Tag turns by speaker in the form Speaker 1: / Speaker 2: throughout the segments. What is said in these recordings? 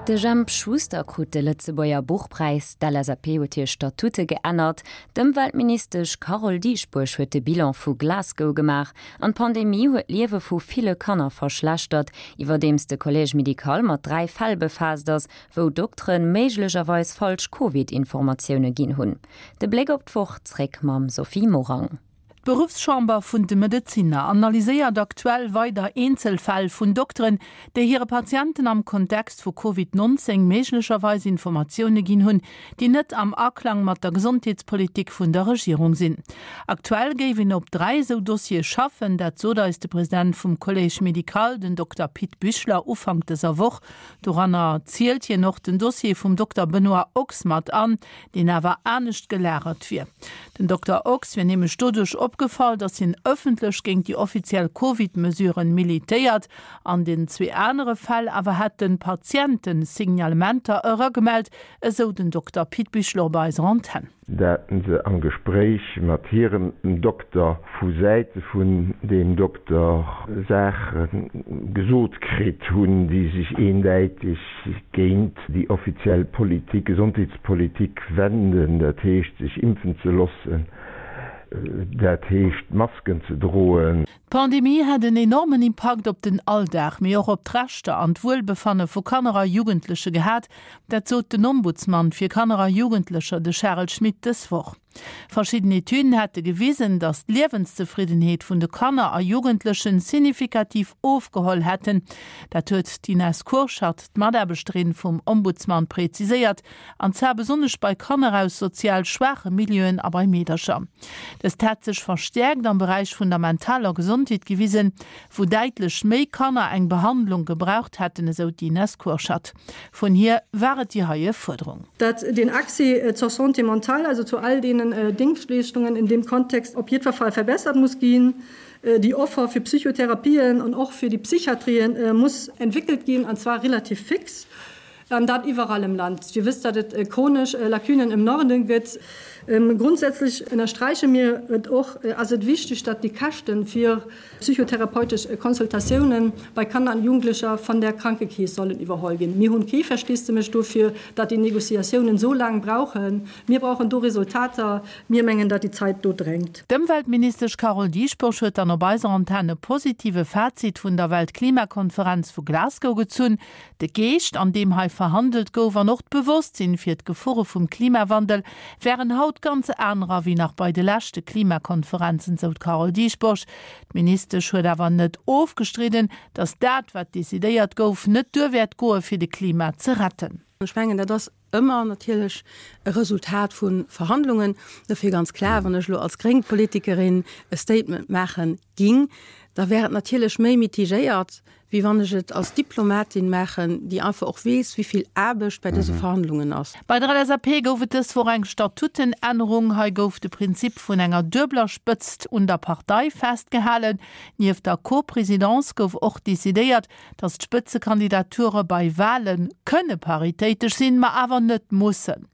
Speaker 1: De Jemp Schuster krut de Lëtzebuerger Buchpräis, d'LSAP huet hir Statute geännert, d'Ëmweltministesch Carole Dieschbourg huet de Bilan vu Glasgow gemaach an d'Pandemie huet d'Liewe vu ville Kanner verschlechtert, iwwerdeems de Collège médical mat 3 Fäll befaasst ass, wou Doktere méiglecherweis falsch Covid-Informatioune ginn hunn. De Bléck op d'Woch zréck mam Sophie Morang.
Speaker 2: D'Beruffschamber vun de Medezinner analyséiert aktuell weider Eenzelfäll vun Dokteren, déi hire Patienten am Kontext vu Covid 19 méiglecherweis Informatioune ginn hunn, déi net am Aklang mat der Gesondheetspolitik vun der Regierung sinn. Aktuell géif een op 3 esou Dossiere schaffen, dat sot eis de President vum Collège médical, den Dokter Pit Büchler, Ufank dëser Woch. Doranner zielt hien och den Dossier vum Dokter Benoît Ochs mat an, deen awer anescht gelagert wier. Den Dokter Ochs wier nämlech doduerch opgefall, datt hien ëffentlech géint déi offiziell Covid-Mesuren militéiert. An den zwee anere Fäll awer hätten Patienten Signalementer eragemellt, esou den Dokter Pit Bichler op eiser Antenn.
Speaker 3: Dat se am Gespréich mat hirem Dokter vu Säite vun deem Dokter Saache gesot kritt hunn, déi sech eendäiteg géint déi offiziell Politik, Gesondheetspolitik wenden, dat heescht sech impfen ze loossen, dat heescht Masken ze droen.
Speaker 2: D'Pandemie hätt en enormen Impakt op den Alldag, mee och op d'Rechter an d'Wuelbefanne vu Kanner a Jugendleche gehat. Dat sot den Ombudsman fir Kanner a Jugendlecher, de Charel Schmit, dës Woch. Verschidden Etüden hätte gewisen, datt d'Liewenszefriddenheet vun de Kanner a Jugendlechen signifikativ ofgeholl hätten. Dat huet d'Ines Kurschat, d'Mataarbechterin vum Ombudsman, preziséiert, an zwar besonnesch bei Kanner aus sozial schwaache Milieuen a bei Meedercher. Dëst hätt sech verstäerkt am Beräich vun der mentaler Gesondheet gewisen, wou däitlech méi Kanner eng Behandlung gebraucht hätten, esou d'Ines Kurschat. Vun hir war et déi heie Fuerderung.
Speaker 4: Dat den Accès zur Santé mentale, also zu all deenen Déngschtleeschtungen in deem Kontext op jiddwer Fall verbessert muss ginn. Déi Offer fir Psychotherapien an och fir déi Psychiatrien muss entwéckelt ginn, an zwar relativ fix, an dat iwwerall im Land. Dir wësst, datt et chronesch Lacunen im Norden gëtt. Grundsätzlech ënnersträiche mir et och, ass et wichteg, datt déi Käschte fir Psychotherapeutesch Consultatiounen bei Kanner an Jugendlecher van der Krankekeess sollen iwwerholl ginn. Mir hunn kee Versteesdemech dofir, datt déi Négociatiounen sou laang brauchen. Mir brauchen do Resultater. Mir mengen, datt déi Zait do drängt.
Speaker 2: D'Ëmweltministesch Carole Dieschbourg huet dann op eiser Antenn e positive Fazit vun der Weltklimakonferenz vu Glasgow gezunn. De Geescht, an deem hei verhandelt gouf, an och d'Bewosstsinn fir d'Gefore vum Klimawandel wären haut ganz anerer wéi nach bei de leschte Klimakonferenzen, sou d'Carole Dieschbourg. D'Ministesch huet awer net ofgestridden, datt dat, wat decidéiert gouf, net duer wäert goe fir de Klima ze retten.
Speaker 5: Ech mengen, dat ass ëmmer natierlech e Resultat vu Verhandlungen. Dofir ganz klar, wann ech elo als gréng Politikerin e Statement maache ging, da wär et natierlech méi mitigéiert, wéi wann ech et als Diplomatin maachen, déi einfach och weess, wéi vill Aarbecht bei dëse Verhandlungen ass.
Speaker 2: Bei der LSAP gouf et dës Woch eng Statutenännerung. Hei gouf de Prinzip vun enger duebeler Spëtzt un der Partei festgehalen. Nieft der Co-Presidence gouf och decidéiert, datt d'Spëtzekandidature bei Wale kënne paritéitesch sinn, ma awer net mussen.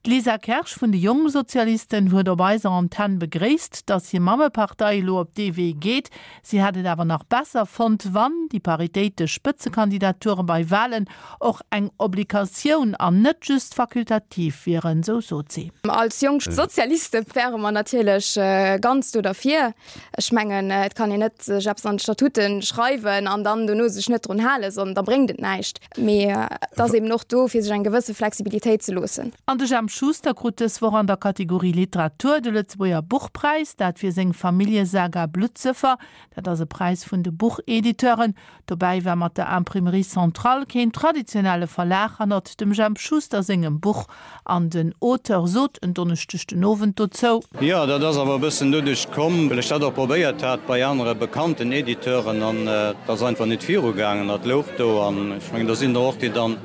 Speaker 2: D'Lisa Kersch vun de Jongsozialisten huet op eiser Antenn begréisst, datt hir Mammepartei elo op dee Wee geet. Si hätt et awer nach besser fonnt, wann déi paritéitesch Spëtzekandidature bei Walen och eng Obligatioun an net just fakultativ wieren, sou sot si.
Speaker 6: Als Jonk Sozialiste wäre mer natierlech ganz do derfir. Ech mengen, et kann een net sech eppes an d'Statuten schreiwen an dann dono sech net drun halen, sondern da bréngt et näischt. Mee et ass eben och do, fir sech eng gewësse Flexibilitéit ze loossen.
Speaker 2: An de Jemp Schuster krut dës Woch an der Kategorie Literatur de Lëtzebuerger Buchpräis, dat fir seng Familljesaga Bluttsëffer. Dat ass e Präis vun de Buchediteuren. Dobäi war mat der Imprimerie Centrale keen traditionelle Verlag hannert dem Jemp Schuster sengem Buch. An den Auteur sot en Donneschdeg den Owend dozou.
Speaker 7: Jo, dat ass awer e bëssen doduerch komm, well ech dat och probéiert hat bei anere bekannten Editeuren an et ass einfach nit virugaangen. Dat louch do an ech mengen, do sinn der och, déi dann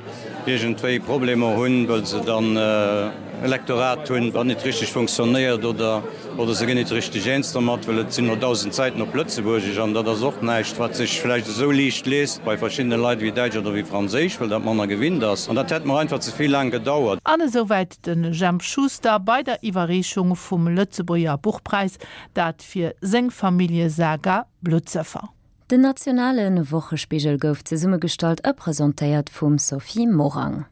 Speaker 7: iergendwéi Problemer hunn, wëll se dann e Lektorat hunn, wat nit richteg funktionéiert oder oder se ginn nit richteg eens dermat, well et sinn elo 1.000 Säiten op Lëtzebuergesch an dat ass och näischt, wat sech vläicht esou liicht liest bei verschiddene Leit wéi Däitsch oder wéi Franséisch, well dat manner gewinnt ass. An dat hätt mer einfach ze vill laang gedauert.
Speaker 2: An esouwäit de Jemp Schuster bei der Iwwerreechung vum Lëtzebuerger Buchpräis, dat fir seng Familljesaga Bluttsëffer.
Speaker 1: Den nationale Wochespigel gouf zesummegestallt a presentéiert vum Sophie Morang.